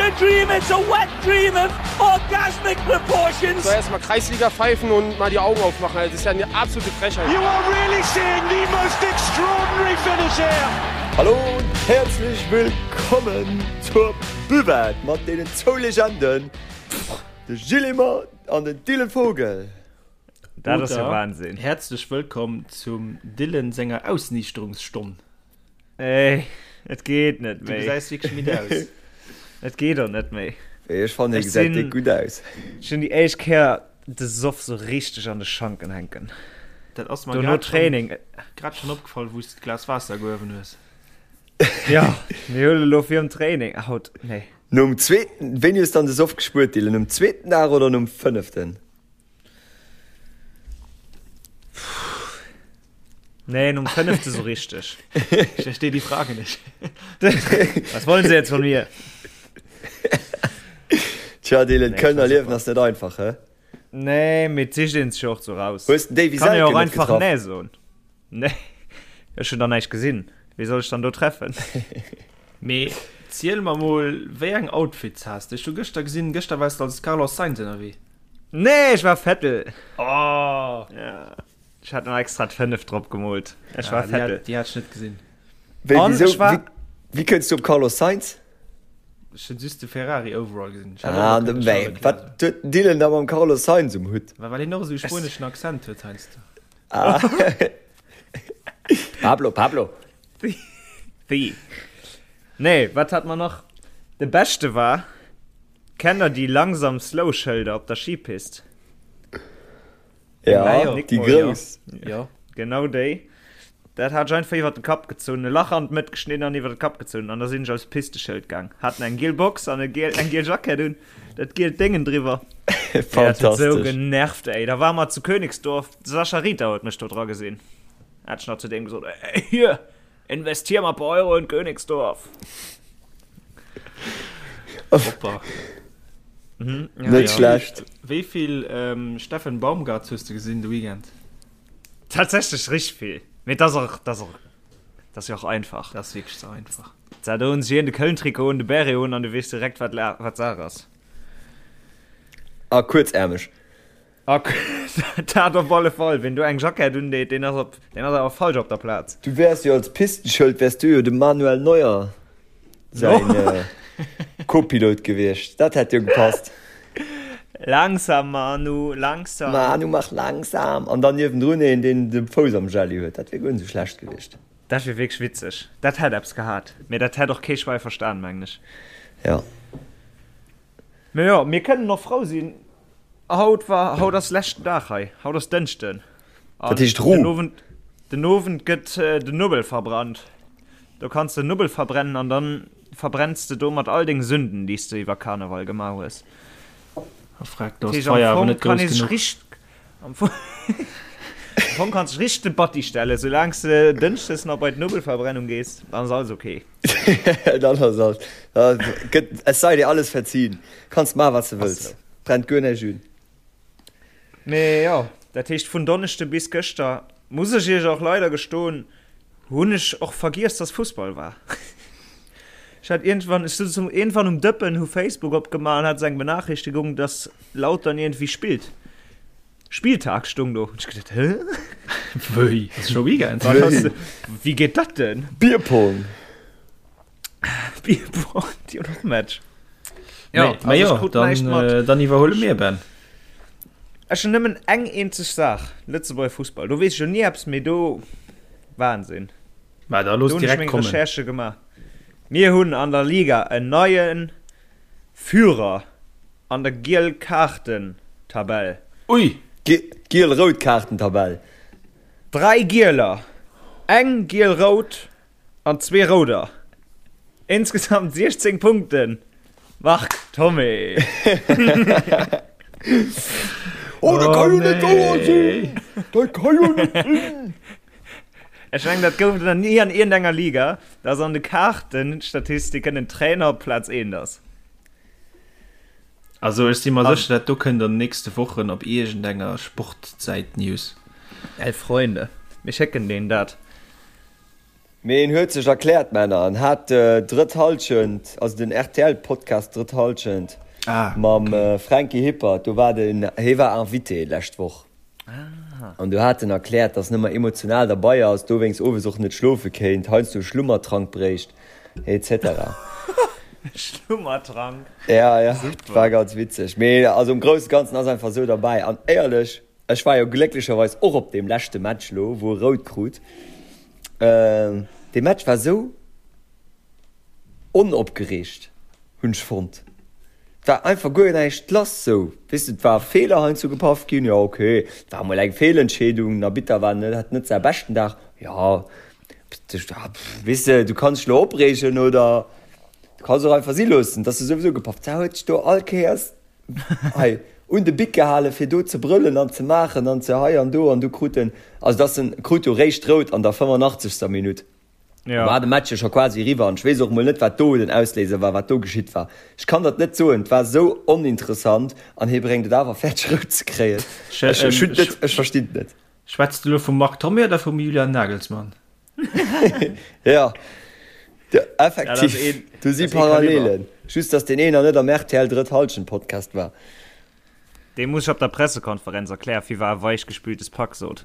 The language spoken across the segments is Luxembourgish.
a dream, it's a wet dream of orgasmic proportions. So erstmal Kreisliga pfeifen und mal die Augen aufmachen. Das ist ja eine absolute Frechheit. You are really seeing the most extraordinary finish here. Hallo und herzlich willkommen zur Buvette mat deenen zwou Legenden, de Gilles Emmer an den Dylan Vogel. Dat ass jo Wahnsinn. Häerzlech wëllkomm zum Dylan senger Ausniichterungsstonn. Ey, et geet net Du méi. gesäis wierklech midd aus. Et geet och net méi. Ech fannen, hie Ech gesäit sinn, déck gutt aus. ech hunn déi éischt Kéier de Soff sou richteg an de Schanken hänken. Dat ass mer Dono grad schonn, Training. grad schonn opgefall, wou s de d'Glas Waasser gehuewen hues. Ja, mir huele lo virum Training. Haut, nee. Nom zweeten, wéini hues dann de Soff gespuert, Dylan? Nom zweeten Dag oder nom fënneften? Nee, nom fënnefte so richteg. Ich verstehe die Frage nicht. Was wollen Sie jetzt von mir? Tja, Dylan, Nee, Kölner war Liewen super. ass net einfach, hä? Nee, mee et sicht een sech och so raus. Hues den Davy Kann jo Selke och net einfach getraff? nee soen. Nee, ech hunn da näischt gesinn. Wee soll ech dann do treffen? Mee ziel mer mol, wéi eng Outfits has de? Ech hu gëschter gesinn, gëschter waars de als Carlos Sainz ënnerwee. Nee, ech war Vettel. Oh! Ja. Ech hat nach extra d'5 drop gemoolt. Ech war Ah, déi hat, Vettel. déi hat ech net gesinn. Wéi, An wieso, ech war. wéi, wéi kënns du op Carlos Sainz? Ech hunn just de Ferrari Overall gesinn. Ech hat och Ah, nach de, kënne wéi, Charles Leclerc wat soen. huet den Dylan da mam Carlos Sainz um Hutt? Well well hien och esou e spueneschen Accent huet heiansdo. Ah. Pablo, Pablo. Wéi? Nee, wat hat mer nach? De beschte war. Kennt der déi langsam slow Schëlder op der Skipist? Ja, déi grouss. Jo. Genau déi. Dat hat ech einfach iwwer de Kapp gezunn, e Lach an d'Mëtt geschnidden an iwwer de Kapp gezunn an da sinn ech als Pisteschëld gaang. Haten eng giel Box an e giel, eng giel Jackett un, dat gielt Déngen driwwer. Ey, dat huet sou Fantastesch. genervt, ey. Da ware mer zu Königsdorf, de Sascha Rita huet mech do dra gesinn. Hat ech nach zu deem gesot, Ey, hier, Investier mal paar Euro in Königsdorf. Hoppa. Mhm, ja, Net ja. schlecht. Wéi vill ähm, Steffen Baumgart hues du gesinn de Weekend? Tatsächlich richtig viel. Mee das och, das och, das ja och einfach. Das wierklech ze einfach. Da do hunn sech een de Köln-Trikot un, de Beret un an du weess direkt wat la wat Saach ass. A kuerzärmeg. A dat op alle Fall. Ween do eng Jackett undeet, deen ass op, deen ass awer falsch op der Plaz. Du wäers jo als Pistenschëld wäers du jo dem Manuel Neuer säin Co-Pilot gewiescht. Dat hätt jo gepasst. Langsam Manu, langsam. Manu mach langsam. An dann niewendrun een, deen de Fouss am Jelli huet. Dat wier guer net esou schlecht gewiescht. Dat wier wierklech witzeg. Dat hätt eppes gehat. Mee dat hätt och kee Schwäi verstan, mengen ech. Jo. Mee jo, mir kënnen och frou sinn. Haut war, haut ass leschten Dag hei. Haut ass Dënschden. Dat heescht Ru. Den Owend, den Owend gëtt den Nubbel verbrannt. Do kanns de Nubbel verbrennen an dann verbrenns de domat all deng Sünden, déi s de iwwer Karneval gemaach hues. Frag, do ass d'Feier awer net grouss genuch. Am Fong, am Fong kanns de richteg de Batti stellen, soulaang s de Dënschdes nach bei d'Nubbelverbrennung gees, dann ass alles ok. Dann ass alles, da gëtt, es sei dir alles verziehen. Kanns maachen, wat s de wëlls. Brennt guer näischt un. Mee jo, dat heescht vun Donneschde bis gëschter, muss ech iech och leider gestoen, hunn ech och vergiess, dass Fussball war. Ech hat iergendwann, ech sot zum iergendwann um Dëppen, hu Facebook opgemaach an hat esou eng Benachrichtigung, dass Lautern iergendwéi spillt. Spieltag stung do. Hunn ech gedacht, hä? Wéi? Ass scho Weekend? Wat ass, wéi geet dat denn? Bierpong! Bierpong, déi hunn och Match. Ja, also also jo, ech krut näischt dann, mat. äh, dann iwwerhuele mir, Ben. Ech hunn nëmmen eng eenzeg Saach, Lëtzebuerger Fussball. Do weess ech jo ni eppes, mee do, Wahnsinn. Ma da looss Do hunn ech direkt meng kommen. Recherchë gemaach. Mir hunn an der Liga en neie Führer an der Giel-Kaarten-Tabell. Ui! Giel-Rout-Kaarten-Tabell. 3 Gieler, eng Giel-Rout an zwee Rouder. Insgesamt 16 Punkten. Marc Thomé. Oh, dat ka jo net wouer sinn! Dat ka jo net sinn! Ech mengen, dat gouf et nach ni an iergendenger Liga, dass an de Kaartenstatistiken en Trainer op Plaz 1 ass. Also ech si mer sécher, dat do kënnt an den nächste Wochen op iergendenger Sportsäit News. Ey Freunde, mir schécken deen dat. Mee en huet sech erkläert, Männer. En hat Drëtt Hallschent, also den RTL-Podcast Drëtt Hallschent mam Franky Hippert, do war den, hie war Invité d'lescht Woch. An do hat en erkläert, dass en ëmmer emotional derbei ass, dowéinst owes och net schlofe kéint, heiansdo e Schlummertrank bréicht, etc. Schlummertrank? Ja, ja, war ganz witzeg. Mee also am grousse Ganzen ass einfach esou derbäi. An éierlech, ech war jo glécklecherweis och op deem leschte Match lo, wou e rout krut. Dee Match war esou onopgereegt, hunn ech fonnt. Et war einfach guer näischt lass sou, weess de, et war e Feeler heiansdo gepaff ginn, jo ok, et war emol eng Feelentscheedung, den Arbitter war net, hat net säi beschten Dag, jo, weess de, du kanns dech elo opreegen oder du kanns och einfach si loossen, et ass jo souwisou gepaff. Da huet sech do all Kéiers hei un de Bic gehalen, fir do ze brëllen an ze maachen an ze hei an do an du krut en, also dass en krut jo réischt rout an der 85. Minutt. Ja. War de Match jo scho quasi eriwwer an ech weess och mol net, wat do den Ausléiser war, wat do geschitt war. Ech kann dat net soen, et war esou oninteressant an hie bréngt et awer fäerdeg rout ze kréien. Ech, ech hunn et net, ech verstinn et net. Schwätz de elo vum Marc Thomé oder vum Julian Nagelsmann? Ja, effektiv, do si Parallelen. Just, dass deen een nach net am rtl Drëtt Hallschent Podcast war. Dee muss ech op der Pressekonferenz erklären, wie war e weichgespültes Pack sot.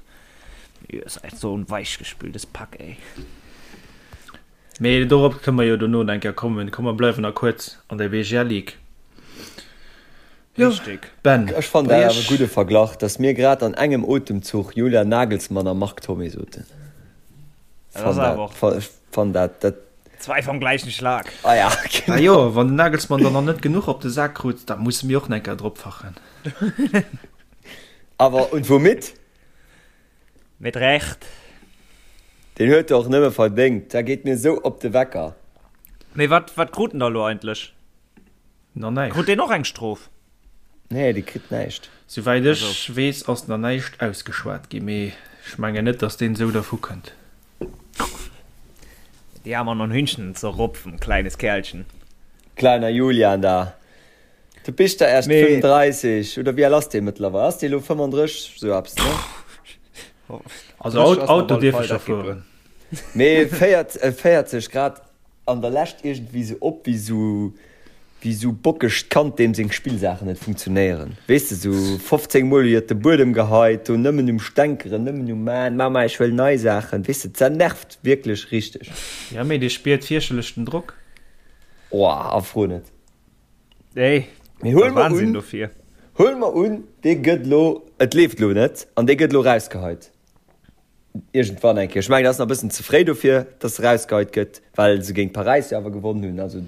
Ihr seid so ein weichgespültes Pack, ey. Mee dorop kënne mer jo dono nach eng Kéier kommen. Komm, mer bleiwen nach kuerz an der BGL Ligue. Jo, Richtig. Ben, Ech fannen bei dat awer e iech. gudde Verglach, dass mir grad an engem Otemzuch Julian Nagelsmann a Marc Thomé soten. Dat ass Fann awer dat, och ech fann dat, dat. Zwei vom gleichen Schlag. Ah ja, Ah genau. jo, wann den Nagelsmann dann nach net genuch op de Sak krut, da musse mir och nach eng Kéier dropfachen. Awer und womit? Mit Recht. Deen huet e och nëmme verdéngt. Dat geet mir esou op de Wecker. Mee wat, wat krut en da lo eigentlech? Nach näischt. Krut deen och eng Strof? Nee, dee kritt näischt. Souwäit ech weess ass nach näischt ausgeschwat ginn, mee ech mengen net, datt deen esou dervu kënnt. Die haben noch ein Hühnchen zu rupfen, kleines Kerlchen. Kleiner Julian da. Du bist da erst Mee 35 oder wéi al ass dee mëttlerweil? Ass dee lo 35 sou eppes, ne? Also Auto dierf ech scho fueren. Mee féiert, féiert sech grad An der Lescht iergendwéi sou op wéi sou wéi sou bockegt Kand deem seng Spillsaachen net funktionéieren. Weess de, sou 15 mol iwwert de Buedem geheit, do nëmmen um Stänkeren, nëmmen um maan, Mama ech wëll nei Saachen. Weess de, dat nervt wierklech richteg. Ja mee dee spiert fierchterlech den Drock. Oh, a fro net. Ey, Mee huel dat mer Wahnsinn un, dofir. huel mer un, dee gëtt lo, et leeft lo net an dee gëtt lo rausgeheit. Iergendwann eng Kéier. Ech mengen, et ass nach e bëssen ze fréi dofir, dass se erausgeheit gëtt, well se géint Paräis jo awer gewonnen hunn. Also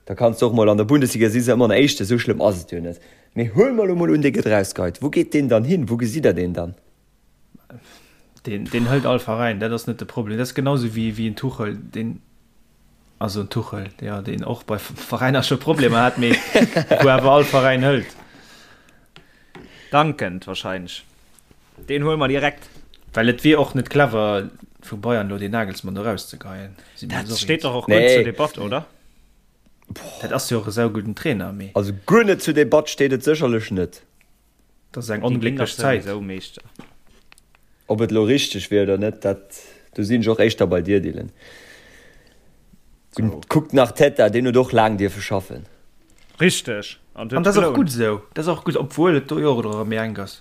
da kanns de och mol an der Bundesliga si se ëmmer an Éischte, esou schlëmm ass et jo net. Mee huele mer elo mol un, dee gëtt erausgeheit. Wou geet deen dann hin? Wou gesitt Der deen dann? Deen, deen hëlt all Veräin, dat ass net de Problem. Dat ass genau esou wéi, wéi en Tuchel, deen, also en Tuchel, jo, deen och bei Veräiner scho Problemer hat, mee wou awer all Veräin hëlt. Dankend wahrscheinlech. Deen huele mer direkt. Well et wier och net clever vu Bayern elo deen Nagelsmann do rauszegeien. Si mir Dat eis och steet eens. dach och guer net zur Nee. Debatt, oder? Dat ass jo och e saugudden Trainer, mee. Also guer net zur Debatt steet et sécherlech net. Dat ass eng Déi ginn dach onglécklech Zäit. souwisou Meeschter. Ob et elo richteg wier oder net, dat, do sinn ech och éischter bei dir, Dylan. So. Kuckt nach Teta, deen huet och laang dierfe schaffen. Richteg. An An huet dat ass och gelount. gutt esou. Dat ass och gutt, obwuel et do jo och erëm méi enk ass.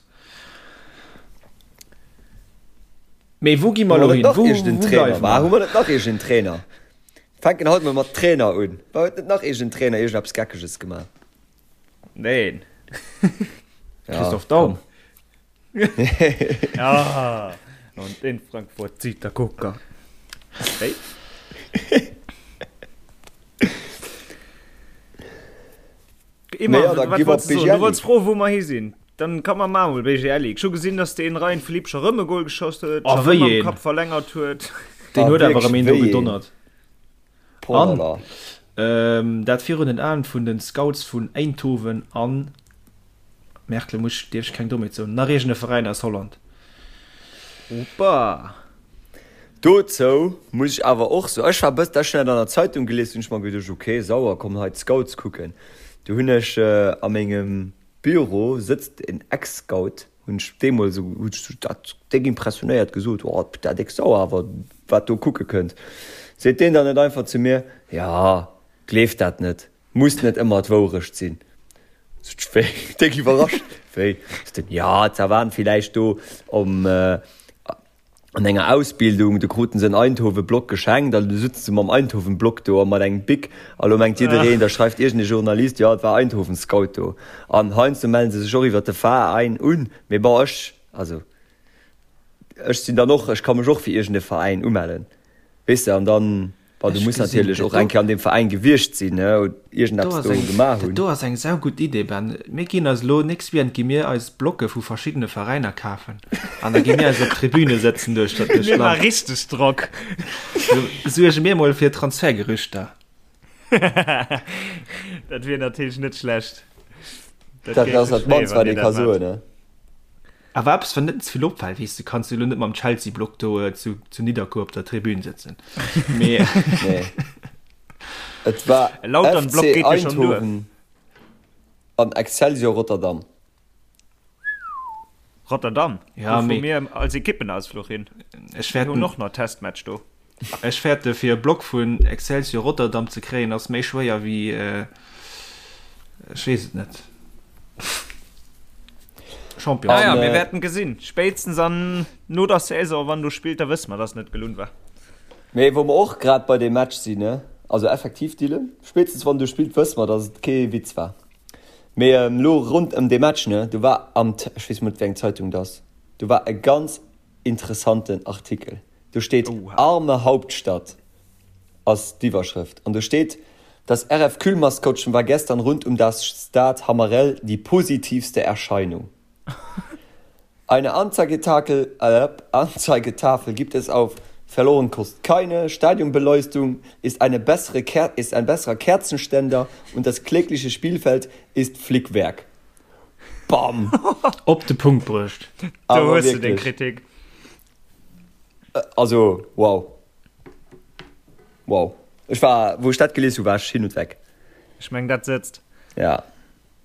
Mee wou gi mer Hu elo mer net hin? nach Wou, iergend en wou Trainer? bleiwe War, hu mer? mer net nach iergend en Trainer? Fänken haut mol mat Trainer un. War huet net nach iergend en Trainer iergendeppes Geckeges gemaach? Neen. Ja, Christoph Daum. komm. Ja. Und in Frankfurt zieht der Kucker. Hey. Immer, Naja, da wat gi mer wolltest du soen? Du BGL. wolltest froen, wou mer hi sinn. Dann kann man mal BGL. Ech hu gesinn, dass den Ryan Philippe scho rëm e Goal geschoss huet, Oh, scho wéi rëm am een. Kapp verlängert huet. Deen Ah, huet awer wierklech, erëm een do wéi een. gedonnert. An Polala. ähm, dat virun den Aen vun den Scouts vun Eindhoven an Merkle muss dierf ech keng Dommheet soen, nach iergend e Veräin aus Holland. Opa! Dozou muss ech awer och soen, ech war bëss, dat ech dat an der Zeitung gelies hunn, ech mer geduecht, ok, sauer, komm hei d'Scouts kucken. Du hunn ech a mengem Büro sëtzt en Ex-Scout, hunn ech deemools esou, hunn ech dat déck impressionéiert gesot, oh, dat déck sauer, awer. wat do kucke kënnt. Seet deen dann net einfach zu mir, Jo, gleef dat net, muss net ëmmer d'Wourecht sinn. Sot ech, Wéi? Déck iwwerrascht, Wéi? Sot en, Jo, ze waren villäicht do om an enger Ausbildung, do kruten se en Eindhoven-Block geschenkt an du sutze se mam Eindhoven-Block do a mat engem Bic a lo mengt jiddereen, da schreift iergend e Journalist, jo et war Eindhoven-Scout do. An heiansdo mellen se sech och iwwert de Veräin un, mee bon ech, also ech sinn dann och, ech ka mech och fir iergend e Veräin umellen, weess de, an dann. Bon, du muss natierlech och eng Kéier an deem Veräin gewiescht sinn, ne, oder iergendeppes do gemaach hunn. Dat do ass eng saugutt Idee, Ben. Mir ginn eis elo, nächst Weekend gi mir eis Blocke vu verschiddene Veräiner kafen an da gi mir eis op d'Tribüne sëtzen duerch dat duerch Mir maache richteg Drock. Suerge mir mol fir Transfergerüchter. Dat wier natierlech net schlecht. Dat ass dat mannst, wat ee ka soen, ne? Awer eppes wat net ze vill opfält, weess de, kanns du elo net mam Chelsea-Block do zu zu Nidderkuer op der Tribün sëtzen. Mee Nee. Et war E lauteren FC Block geet jo schonn duer. Eindhoven an Excelsior Rotterdam. Rotterdam, Ja, do fu mee mir als Ekippenausfluch hin. ech Mir hunn fäerten och nach Testmatch do. ech fäerte fir e Block vun Excelsior Rotterdam ze kréien ass méi schwéier wéi Ech weess et net. Champion. Naja, mir wäerten gesinn. Spéitstens an no der Saison, wann do spillt, da wësse mer, dass et net gelunn war. Mee wou mer och grad bei deem Match sinn, ne? Also effektiv, Dylan, spéitstens wann do spillt, wësse mer, dass et kee Witz war. Mee elo rond ëm dee Match, ne, do war am, ech weess mol net, wéi eng Zeitung et ass, do war e ganz interessanten Artikel. Do steet Arme Hauptstadt. ass d'Iwwerschrëft. An do steet, Das RF Kühl-Maskottchen war gestern rund um das Stade Hammerel die positivste Erscheinung. Eine Anzeigetakel, äh, Anzeigetafel gibt es auf Verloren kost keine, Stadionbeleuchtung ist eine bessere Ker ist ein besserer Kerzenständer und das klägliche Spielfeld ist Flickwerk. Bam! Op de Punkt bruecht. Do hues de deng Kritik. Also wow. Wow. Ech war, wou ech dat gelies hu, war ech hin und weg. Ech meng dat sëtzt. Ja.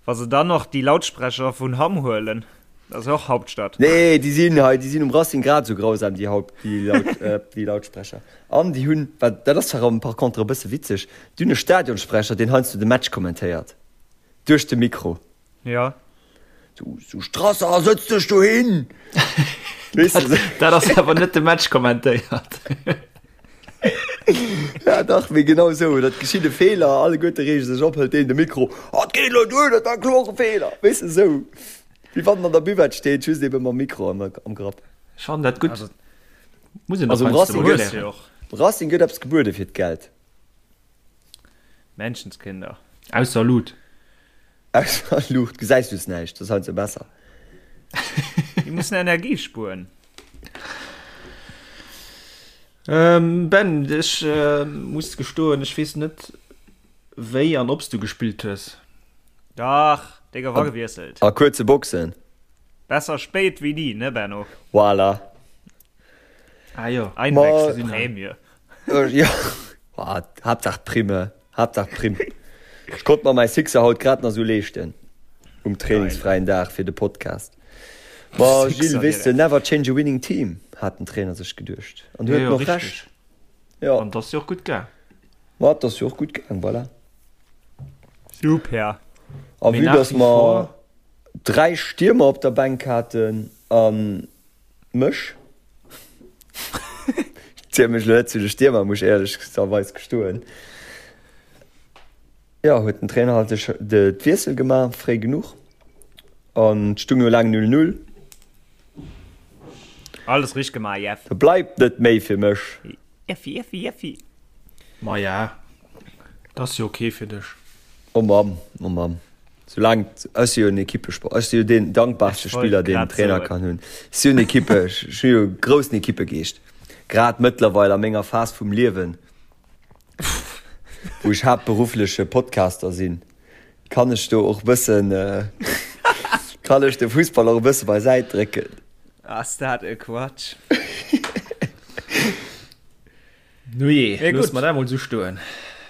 Wa se dann och déi Lautsprecher vun Hamm huelen, dat ass jo och Hauptstadt. Nee, déi sinn hei, déi sinn um Racing grad esou grausam, déi Haupt, déi Laut, déi Lautsprecher. An déi hunn, wat, dat ass zwar par contre e bësse witzeg, déi hunn e Stadionsprecher, deen heiansdo de Match kommentéiert. Duerch de Mikro. Ja. Du, du Strasser, sëtz dech do hin! Dat ass awer net de Match kommentéiert. Ja dach, mee genau esou. Dat geschitt e Feeler, alleguerte reege sech op, hëlt deen de Mikro, Oh, et geet elo duer, dat war kloer e Feeler! Weess de, esou. Wéi wann en an der Buvette steet, just ebe mam Mikro am, am Grapp. Ech fannen dat gutt. Muss een Also um Racing gëtt, Racing gëtt eppes gebuede fir d'Geld. Menschenskinder. Ausser Luut. Ausser Luucht gesäis du näischt, dat ass heiansdo besser. Déi mussen Energie spueren. Ben, ech muss gestoen, ech weess net wéi an ob s du gespillt hues. Dach, dee gouf agewiesselt. A kuerze Boxen. Besser spéit wéi ni, ne Benno? Voilà. Ah jo. Einwechselprämie. Jo, Haaptsaach Prime, Haaptsaach Primm. Ech konnt mer mäi Sixer haut grad nach sou leeschten um trainingsfräien Dag fir de Podcast. Ma Gilles, weess de, never change a winning team, hat den Trainer sech geduecht. An huet en och Recht. Jo. An 't ass jo och gutt gaang. Ma 't ass jo och gutt gaang, voilà. Super. A vue dass mer 3 Stiermer op der Bänk haten an Mech? Ech ziele mech elo net zu de Stiermer, muss ech éierlecherweis gestoen. Jo, huet den Trainer halt de d'Wiessel gemaach, fréi genuch. An et stung jo laang 0, 0. Alles richteg gemaach, Jeff. Da bleift net méi fir mech. Jeffi, Jeffi, Jeffi. Maja, dat ass jo ok fir dech. Oh Mamm, oh Mamm. Soulaang, ech si jo en Equippesport, ech si jo deen dankbarste Spiller, deen en Trainer kann hunn. Ech si jo en Equippe, ech hu jo e groussen Equippegeescht. Grad mëttlerweil a menger Phas vum Liewen, wou ech haaptberuffleche Podcaster sinn, kann ech do och e bëssen, kann ech de Fussball och e bësse beisäit drécken. Ass dat e Quatsch! Nujee, loosse mer dat mol esou stoen.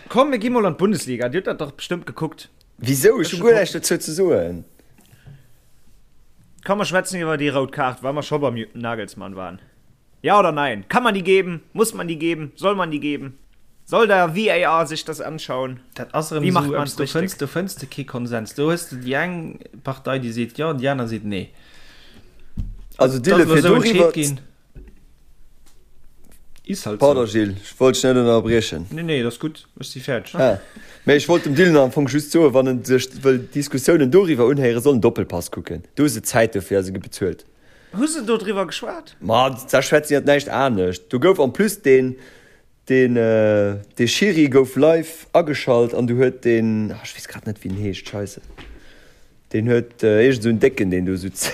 Komm, mir gi mol an d'Bundesliga. Dir hutt dat dach bestëmmt gekuckt. Wisou? Ech hu guer näischt dozou ze soen. Komm, mer schwätzen iwwer déi rout Kaart, wa mer scho beim Nagelsmann waren. Ja oder nein? Kann man die geben? Muss man die geben? Soll man die geben? Soll der VAR sich das anschauen? Dat ass erëm Wie macht esou man's eppes, do richtig? fënns, do fënns de kee Konsens. Do hues de déi eng Partei, déi seet jo, an déi aner seet nee. Also Dat Dille, ass elo fir esou entscheet doriwwer. ginn. Is halt Pardon sou. Gilles, ech wollt dech net ënnerbriechen. Nee, nee, et ass gutt, ech si fäerdeg. Ah, mee ech wollt dem Dylan am Fong just soen, wann en sech wëll Diskussiounen doriwwer unhéieren, soll en Doppelpass kucken. Do hu se Zäit dofir a se gi bezuelt. Hu se do driwwer geschwat? Ma da schwätzen iwwer näischt anescht. Do gouf en plus deen, deen, dee Schiri gouf live ageschalt an du huet deen, ah ech weess grad net wéi en heescht, scheisse. Deen huet iergend esou en Décken, deen do sutz.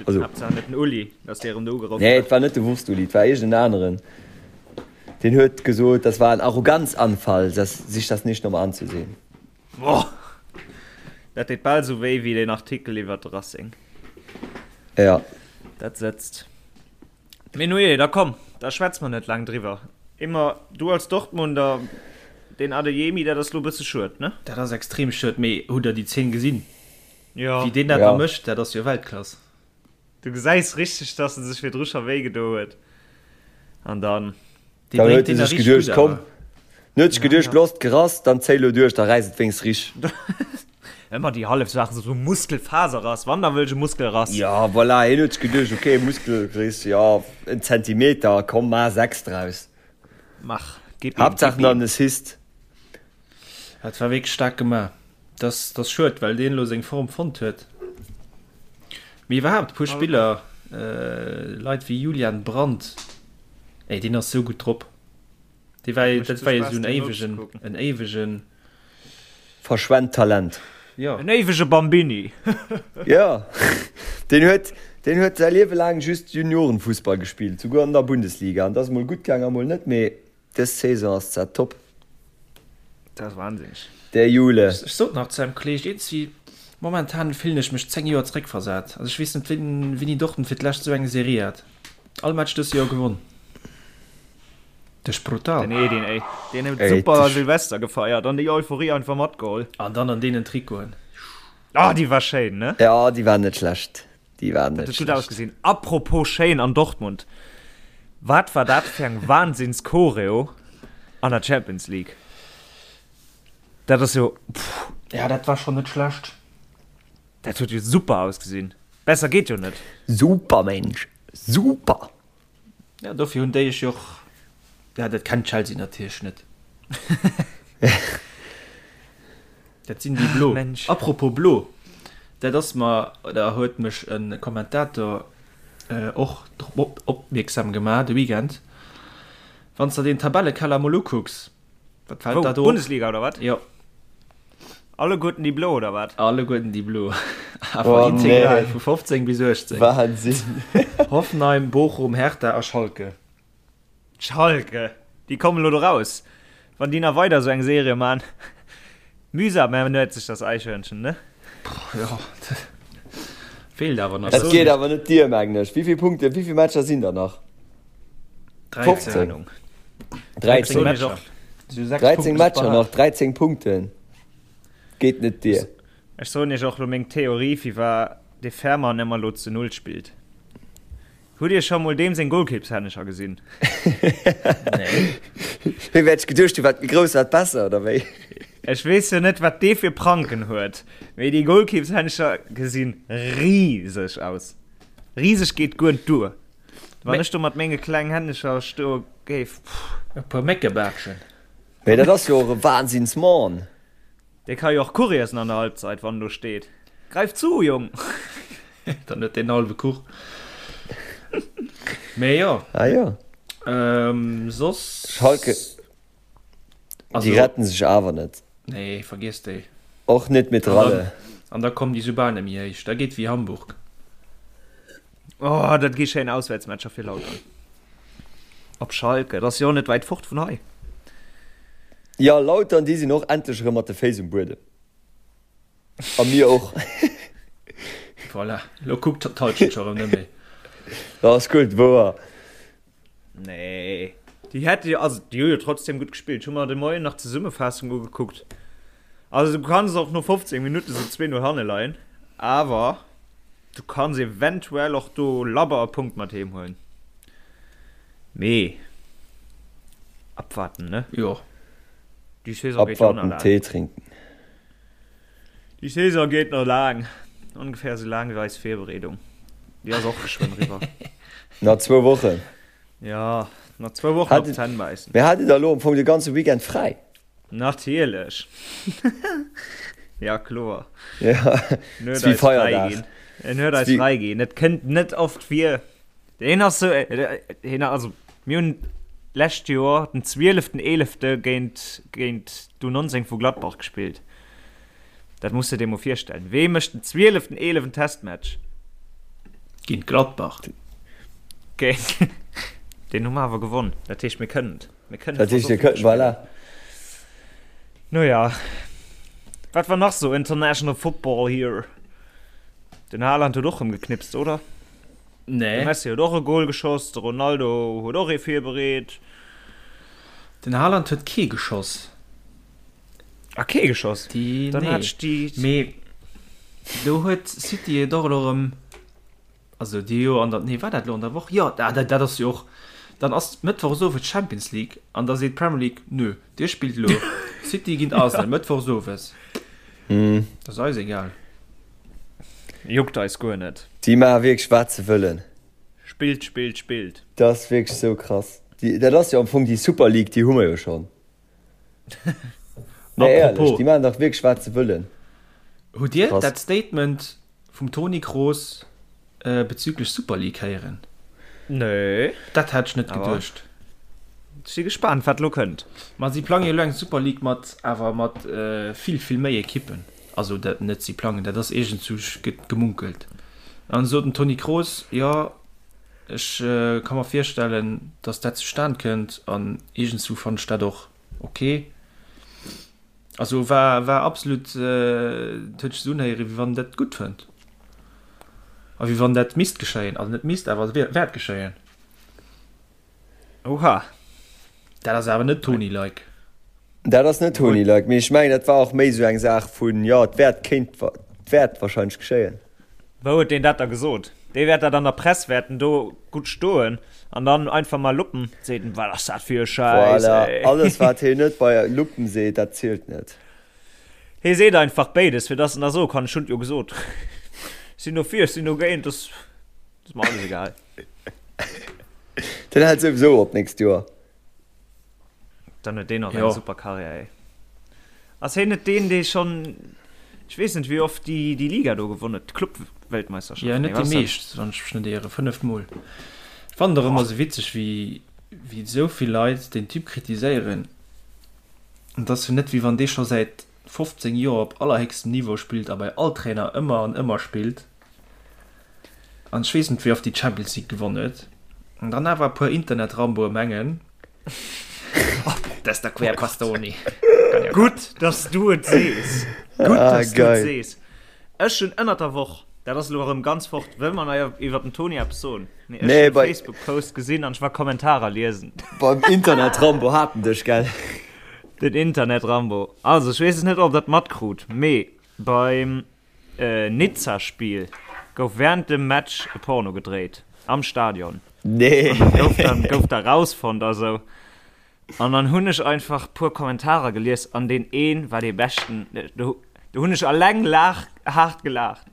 Also. Haaptsaach net den Uli, dass dee erëm do ugeruff Nee, huet. et war net de Wurst-Uli, et war iergend en aneren. Deen huet gesot, das war ein Arroganzanfall, das, sich das nicht nochmal anzusehen. Boah! Dat deet bal esou wéi wéi deen Artikel iwwer de Racing. Ja. Dat sëtzt. Mee nujee, da komm, da schwätze mer net laang driwwer. Immer du als Dortmunder, deen Adeyemi, dat ass lo bësse schued, ne? Dat ass extrem schued, mee hutt der déi Zeen gesinn? Jo. Wéi deen dat da mécht, dat ass jo Weltklass. Du gesäis richteg, dass en sech virdru scho wéi gedo huet an dann. Dee Dann bréngt huet e deen da sech richteg geduecht, gutt komm, awer. dann huet sech geduecht, looss d'Gerass, dann zéi lo duerch, da räiss et wéinst rich. Ëmmer déi hallef Saach, esou Muskelfaserrass, wann da wëll ech e Muskelrass. Ja, voilà, hien huet sech geduecht, ok, Muskelriss, jo, en Zentimeter, komm, maach 6 draus. Mach, gib ihm, Haaptsaach gib ihm. en Assist. Dat war wierklech staark gemaach. Dat ass schued, well deen elo seng Form fonnt huet. Mee iwwerhaapt e puer Spiller, Leit wéi Julian Brandt, ey, deen ass sou gutt drop. Dee war, dat war jo sou en éiwegen, en éiwegen. Verschwent Talent. Jo. En éiwege Bambini. Jo, deen huet, deen huet säi Liewe laang just Juniorenfussball gespillt, souguer an der Bundesliga. An dat ass mol gutt gaang a mol net, mee dës Saison ass dat top. Dat ass wahnsinneg. Der Jule. Ech sot nach zu engem Kolleeg, iergendwéi momentan fillen ech mech 10 Joer zeréckversat. Also ech weess net, wéini Dortmund fir d'lescht esou eng Serie hat. All Match dëst Joer gewonn. Dat ass brutal. Den Edin, ey. Deen huet Ey, super das- Silvester gefeiert an déi Euphorie einfach matgeholl. An dann an deenen Trikoten. Ah, déi war schéin, ne? Ja, déi war net schlecht. Déi war Dat net huet gutt schlecht. ausgesinn. Apropos schéin an Dortmund. Wat war dat fir eng Wahnsinns-Choreo an der Champions League? Dat ass jo, pff, Ja, dat war schonn net schlecht. dat huet jo super ausgesinn. Besser geet jo net. Super, Mensch. Super! Ja, dofir hunn déi ech jo och, ja, dat kennt Chelsea natierlech net. Dat sinn déi Blo. Mensch. Apropos Blo, dat ass mer, oder huet mech e Kommentator och drop opmierksam gemaach de Weekend. Wann s de den Tabellekeller mol ukucks, Wat fällt Wou? da do op? Bundesliga oder wat? Jo. Alleguerten déi Blo oder wat? Alleguerten déi Blo. Awer Oh, integral nee. vu 15 bis 18. Wahnsinn. Hoffenheim, Bochum, Hertha a Schalke. Schalke, déi kommen elo do raus. Wann déi nach weider esou eng Serie man. Mühsam ernährt sich das Eichhörnchen, ne? Jo, feelt awer nach. Dat geet awer net dier, mengen ech. Wéi vill Punkte, wéi vill Matcher sinn der nach? 13. 13 Matcher. 13 Matcher nach, 13 Punkten. Geet net dier. Ech soen iech och lo meng Theorie firwar de Fährmann ëmmer lo zu Null spillt. Hutt dir scho mol deem seng Golkippshännecher gesinn? Nee. Wéi wäert ech geduecht hunn, wat méi grouss wat besser, oder wéi? Ech weess jo net wat dee fir Pranken huet, mee déi Golkippshännecher gesinn riseg aus. Riseg geet guer net duer. Wann ech do mat menge klengen Hännecher stoe géif, pff. E puer Méckebaatschen. Mee dat ass jo och e Wahnsinnsmann. Dee ka jo och Kuch iessen an der Halbzeit, wann en do steet. Greif zu, Jong! Dann huet deen hallwe Kuch. Mee jo. Ah jo. Soss. Schalke, déi retten sech awer net. Nee, vergiess déi. Och net mit Ralle. An da kommen déi soubal net méi héich. Da geet wéi Hamburg. Oh, dat gi schéin Auswäertsmatcher fir Lautern. Op Schalke, dat ass jo och net wäit fort vun hei. Jo, Lautern, déi sinn och endlech erëm mat de Féiss um Buedem. A mir och. Voilà, lo kuckt d'Halschent scho erëm net méi. Dat ass gutt, wouer. Nee, déi hätte jo, also déi hu jo trotzdem gutt gespillt. Ech hu mer de Moien nach d'Zesummefaassung ugekuckt. Also du kanns och no 15 Minutte sou 2-0 hanne leien, awer du kanns eventuell och do labber e Punkt mat heem huelen. Mee abwarten, ne? Jo. Déi Saison geet jo och nach Abwarten, laang. Tee trinken. Déi Saison geet nach laang. Ongeféier esou laang wéi eis Virbereedung. Déi ass och geschwënn eriwwer. Nach zwou Wochen. Jo, nach zwou Wochen op d'Zänn bäissen. Mee hat Dir da elo am Fong de ganze Weekend fräi? Natierlech. Ja, kloer. Ja, En huet wéi eis fräi Feierdag. ginn. En huet eis Wéi- fräi ginn. Et kënnt net oft vir. Hien ass sou, hien, also mir hunn d'lescht Joer den 12.11. géint, géint d'U19 vu Gladbach gespillt. Dat muss de dir mol virstellen. Wee mécht den 12.11. en Testmatch? Géint Gladbach. Géint, deen hu mer awer gewonn. Dat heescht, mir kënnen et. Mir kënnen Dat heescht, dir kënnt, voilà. No ja. Wat war nach sou International Football here? Den Haaland huet och rëm geknipst, oder? Nee. De Messi huet och e Goal geschoss, de Ronaldo huet och ee virbereet. Den Haaland huet kee geschoss. Ah, kee geschoss? Déi, Dann nee. hat ech déi. Mee do huet City et och elo erëm, also déi jo an der, nee war dat elo an der Woch? Jo, ah, dat, dat ass jo och, dann ass Mëttwochs owes Champions League an da seet d'Premier League, nö, dir spillt elo City géint Arsenal Mëttwochs owes. Dat ass eis egal. Juckt eis guer net. Déi maache wierklech wat se wëllen. Spillt, spillt, spillt. Dat ass wierklech sou krass. Déi, dat ass jo am Fong déi Super League, déi hu mer jo schonn. Nee, éierlech, déi maachen dach wierklech wat se wëllen. Hutt Dir Krass. dat Statement vum Toni Kroos bezüglech Super League héieren? Nee. Dat hat ech net Awer geduecht. Ech si gespaant, wat elo kënnt. Ma si plange jo elo eng Super League mat awer mat vill, vill méi Ekippen. Also dat net si plangen, dat ass iergendsou gëtt gemunkelt. An sot den Toni Kroos, jo ech ka mer virstellen, datt dat zustan kënnt an iergendsou fannen ech dat och ok. Also war war absolut, et huet sech esou unhéieren, wéi wann en dat gutt fënnt a wéi wann dat misst geschéien, also net misst, awer wäert geschéien. Oha. Dat ass awer net Toni-like. Dat ass net Toni-like, mee ech mengen dat war och méi esou eng Saach vun, jo et wäert, kéint, et wäert wahrscheinlech geschéien. Wou huet deen dat da gesot? Dee wäert dat an der Press wäerten do gutt stoen an dann einfach mal Luppen seet en, wat ass dat fir e Schäiss, Voilà, ey. alles wat heen net bei Luppen seet, dat zielt net. Hee seet einfach béides, fir dass en da soe kann, ech hunn et jo gesot. Ech sinn dofir, ech sinn dogéint, dat ass mer alles egal. Den hält souwisou op d'nächst Joer. Dann huet deen och Jo. eng super Karriär, ey. Ass heen net deen, dee schonn, ech weess net wéi oft, déi, déi Liga do gewonn huet, d'Club-Weltmeisterschaft? Jo, Nee, net wat déi ass dat? meescht, wann ech mech net ieren, 5 Mol. Ech fannen et och ëmmer esou witzeg, wéi, wéi esou vill Leit deen Typ kritiséieren. An et ass jo net, wéi wann dee scho säit 15 Joer op allerhéchstem Niveau spillt a bei all Trainer ëmmer an ëmmer spillt. An ech weess net wéi oft déi Champions League gewonn huet. An dann awer e puer Internet-Ramboe mengen, Das der quer Bastoni. Gutt, dass du et sees. Gutt, Ah, dass du et geil. sees. Ech hunn ënnert der Woch, dat ass elo erëm ganz fort, wëll mer nach iwwer den Toni eppes soen? Mee ech Nee, hunn e bei- Facebook-Post gesinn an ech war Kommentarer liesen. Beim Internet-Rambo hat en dech, gell? Den Internet-Rambo. Also, ech weess es net, ob der et matkrut, mee beim Nizza-Spill gouf wärend dem Match e Porno gedréit am Stadion. Nee. An dat gouf dann, gouf da rausfonnt a sou. An dann hunn ech einfach puer Kommentarer gelies an deen een war dee beschten. Do, do hunn ech alleng laach, haart gelaacht.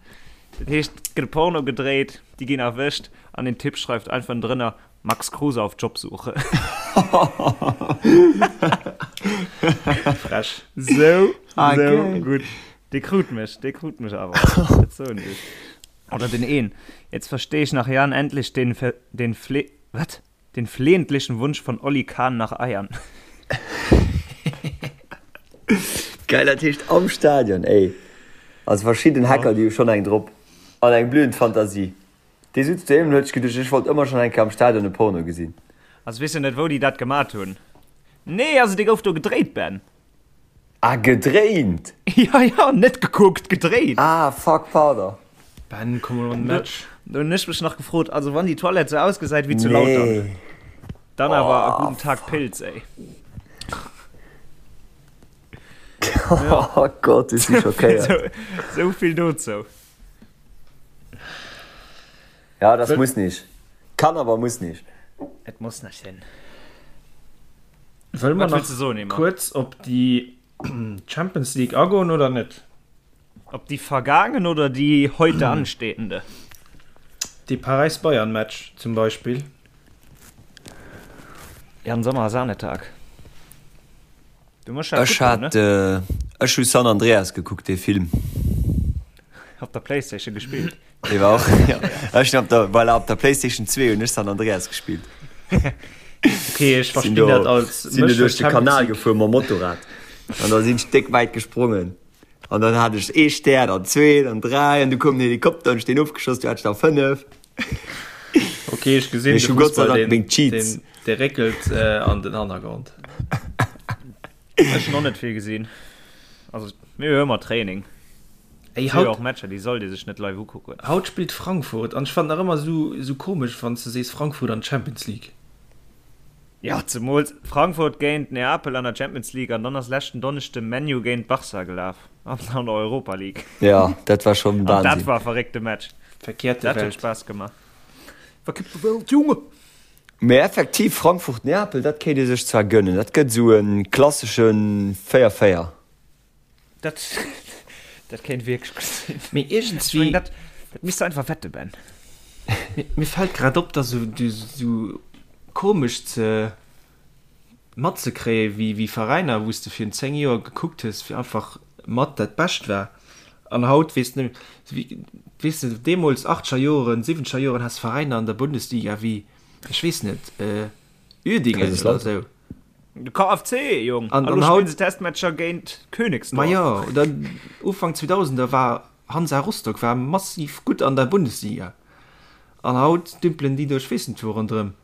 Dat heescht, et gëtt e Porno gedréit, déi ginn erwëscht an den Typ schreift einfach drënner, Max Kruse auf Jobsuche. Frech. Sou, Ah, sou geil. gutt. Dee krut mech, dee krut mech awer. Dat soen ech. Oder den een. Jetzt verstehe ich nach Jahren endlich den, den Fle, wat? Den flehentlichen Wunsch von Olli Kahn nach Eiern. Geil, dat heescht am Stadion, ey. Also verschidden Hacker, déi hu schonn eng drop. An eng blühend Fantasie. Dee sutz doheem an huet sech geduecht, ech wollt ëmmer schonn eng Kéier am Stadion e Porno gesinn. Also weess jo net wou déi dat gemat hunn. Nee, also dee gouf do gedréit, Ben. Ah, gedréint? Ja, ja, net gekuckt, gedréit. Ah, fuck, pardon. Ben, komm mol an den Match. Do hunn ech mech nach gefrot, also wann déi Toilette sou ausgesäit wéi zu Lautern, Nee. dann awer a Oh, guten Tag fuck. Pilz, ey. Oh Gott, ech si schockéiert. Sou, sou vill dozou. Ja, das muss nicht. Kann, aber muss nicht. Et muss net sinn. Wëlle mer nach kuerz op déi Champions League agoen oder net? Op déi vergaangen oder déi heute anstehende? Dee Paräis-Bayern-Match zum Beispill. Jan Sommer Sahnetag. Du muss Ech hat ech hu San Andreas gekuckt, dee Film. Op der Playstation gespillt. Dee war och ja. Ech hunn op der voilà, op der Playstation 2 hunn ech San Andreas gespillt. Okay, ech verstinn dat als sinn do duerch de Kanal gefuer mam Motorrad an da sinn ech déck wäit gesprongen an dann hat ech ee Stär, dann zwee, dann dräi an du koum den Helikopter an ech deen ofgeschoss, du hat ech der 5. Okay, ech gesinn de Fussball, deen, deen, dee réckelt äh, an den Hannergrond. Ech hunn och net vill gesinn. Also mir hu ëmmer Training. Ey, haut och Matcher, déi sollt ee sech net live ukucken. Haut spillt Frankfurt an ech fannen nach ëmmer sou, sou komesch, wann s de sees Frankfurt an d'Champions League. Jo, zemools Frankfurt géint Neapel an der Champions League an dann ass leschten Donneschde ManU géint Barca gelaf an der Europa League. Jo, dat war schonn Wahnsinn. An dat war e verréckte Match. Verkehrte Dat huet Welt. Spaass gemaach. Verkippte Welt, Junge! Mee effektiv, Frankfurt-Neapel, dat kéint ee sech zwar gönnen. Dat gëtt esou e klassesche 4-4. Dat, dat kéint wierklech gutt sinn. Mee Ech iergendswéi. mengen, dat, dat misst de einfach wette, Ben. Mir, mir fält grad op, dass esou, du, esou komesch ze matzekréien, wéi, wéi Veräiner, wou s de virun 10 Joer gekuckt hues, fir einfach mat dat Bescht war. An haut weess de net méi, weess de, deemools, achtzeger Joren, siwwenzeger Joren, has Veräiner an der Bundesliga wéi, ech weess net, Uerdingen oder esou. De KFC, Jong! An, A lo an haut. spillen se Testmatcher géint Königsdorf. Ma jo, oder Ufank 2000er war Hansa Rostock war massiv gutt an der Bundesliga. An haut dümpelen déi do ech weess net wou ronderëm.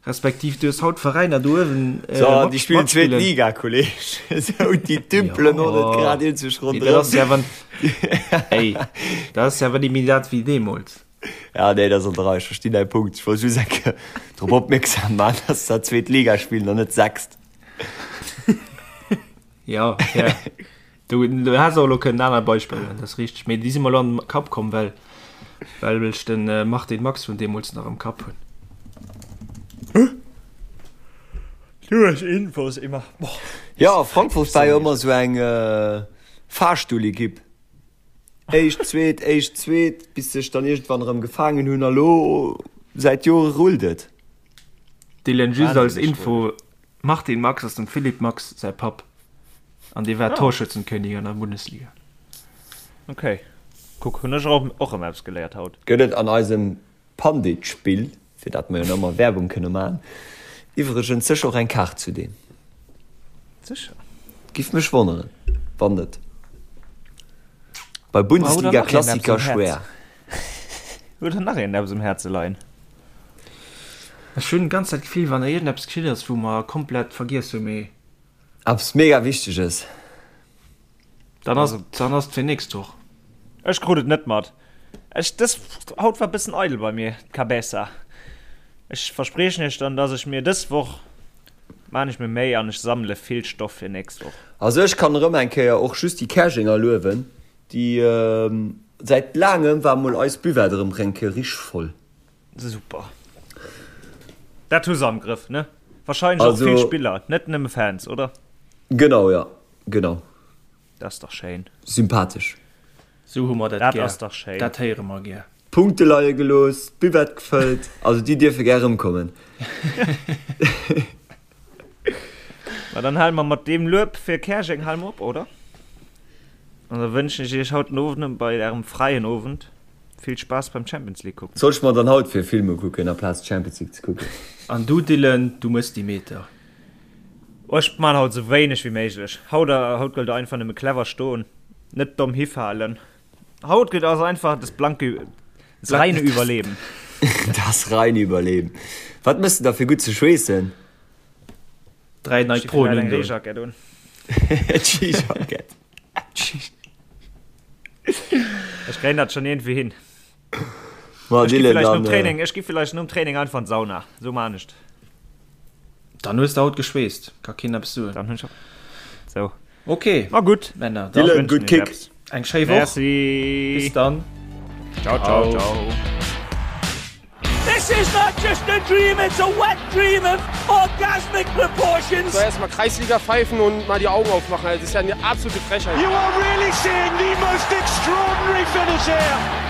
Respektiv du hues haut Veräiner do uewen So, déi spillen zweet Liga, Kolleg. Esou, déi dümpelen och net grad eenzeg Mee dat ass ronderëm. jo awer, ey, dat ass jo awer net méi dat wéi deemools. Ja, nee, dat ass an der Rei. Ech verstinn däi Punkt. Ech wollt just eng Kéier drop opmierksam maachen, dass se zweet Liga spillen an net sechst. Jo, fair. Du, du häss och elo kënnen aner Beispiller huelen, dat ass richteg. Mee déi si mer elo an den Kapp komm, well, well ech den Martin Max vun deemools nach am Kapp hunn. Du hues Infos immer. Boah. Jo, Frankfurt war jo ëmmer esou eng Fahrstuhlekipp. Éischt, zweet, éischt, zweet, bis sech dann iergendwann erëm gefaangen hunn a lo säit Jore rullt et. Dylan, just als Wahnsinneg Info, Martin Max ass dem Philippe Max säi Papp an dee war Torschützenkönig an der Bundesliga. Ok, kuck, hunn ech och erëm eppes geléiert haut. Gëtt et an eisem Pandit-Spill, fir dat mer jo nach ëmmer Werbung kënne maachen, iwwregens sécher och eng Kaart zu deem. Sécher. Giff mech wonneren, wann net. Bei Bundesliga-Klassiker schwéer. Huet der nach een eppes um Häerze leien? Ech hunn ganz dat Gefill, wann iergendeppes geschitt ass, wou mer komplett vergiess hunn, mee. Eppes mega Wichteges. Dann ass, dann ass et fir nächst Woch. Ech krut et net mat. Ech, dës, haut war bëssen eidel bei mir, d'Cabeza. Ech verspriechen iech dann, dass ech mir dës Woch maan ech mir Méi an ech sammele vill Stoff fir nächst Woch. Also ech kann erëm eng Kéier och just déi Käerjenger luewen, déi säit laangem war mol eis Buvette erëm eng Kéier richteg voll. Super. Dat hu se am Grëff, ne? Wahrscheinlech och vill Spiller, net nëmme Fans, oder? Genau, jo, genau. Dat ass dach schéin. Sympathesch. Sou hu mer dat Dat gär. ass dach schéin. Dat héiere mer gär. Punkte leie gelooss, d'Buvette gefëllt, also déi dierfe gär erëmkommen. Ma dann hale mer mat deem Lueb fir Käerjeng hale mer op, oder? An da wënschen ech iech haut den Owend bei ärem fräien Owend vill Spaass beim Champions League kucken. Soll ech mer dann haut fir Filme kucken aplaz d'Champions League ze kucken? An du Dylan, du mëss déi Meter. Oh, ech man haut sou wéineg wéi méiglech. Haut, haut gëllt einfach nëmme clever stoen, net domm hifalen. Haut gëtt ass einfach das blanke, das reine Überleben. Das reine Überleben. Wat mëss de da fir gutt ze schweessen? 3 Nike Pro eng Reejackett un. Ski-Jackett. Ech kréien dat schon iergendwéi hin. Ma Ech gi Dylan, vielleicht nom dann, Training, ech gi vielleicht nom Training einfach an d'Sauna. Sou man ech et. Dann hues de haut geschweesst, ka keen eppes soen. Dann hunn ech sou. Ok, Ma gutt, Männer, dann Dylan, gutt Kick. eng schéi Woch. Merci. Bis dann. Ciao, ciao, ciao. This is not just a dream, it's a wet dream of orgasmic proportions. So, erstmal Kreisliga pfeifen und mal die Augen aufmachen. Das ist ja eine absolute Frechheit. You are really seeing the most extraordinary finish here.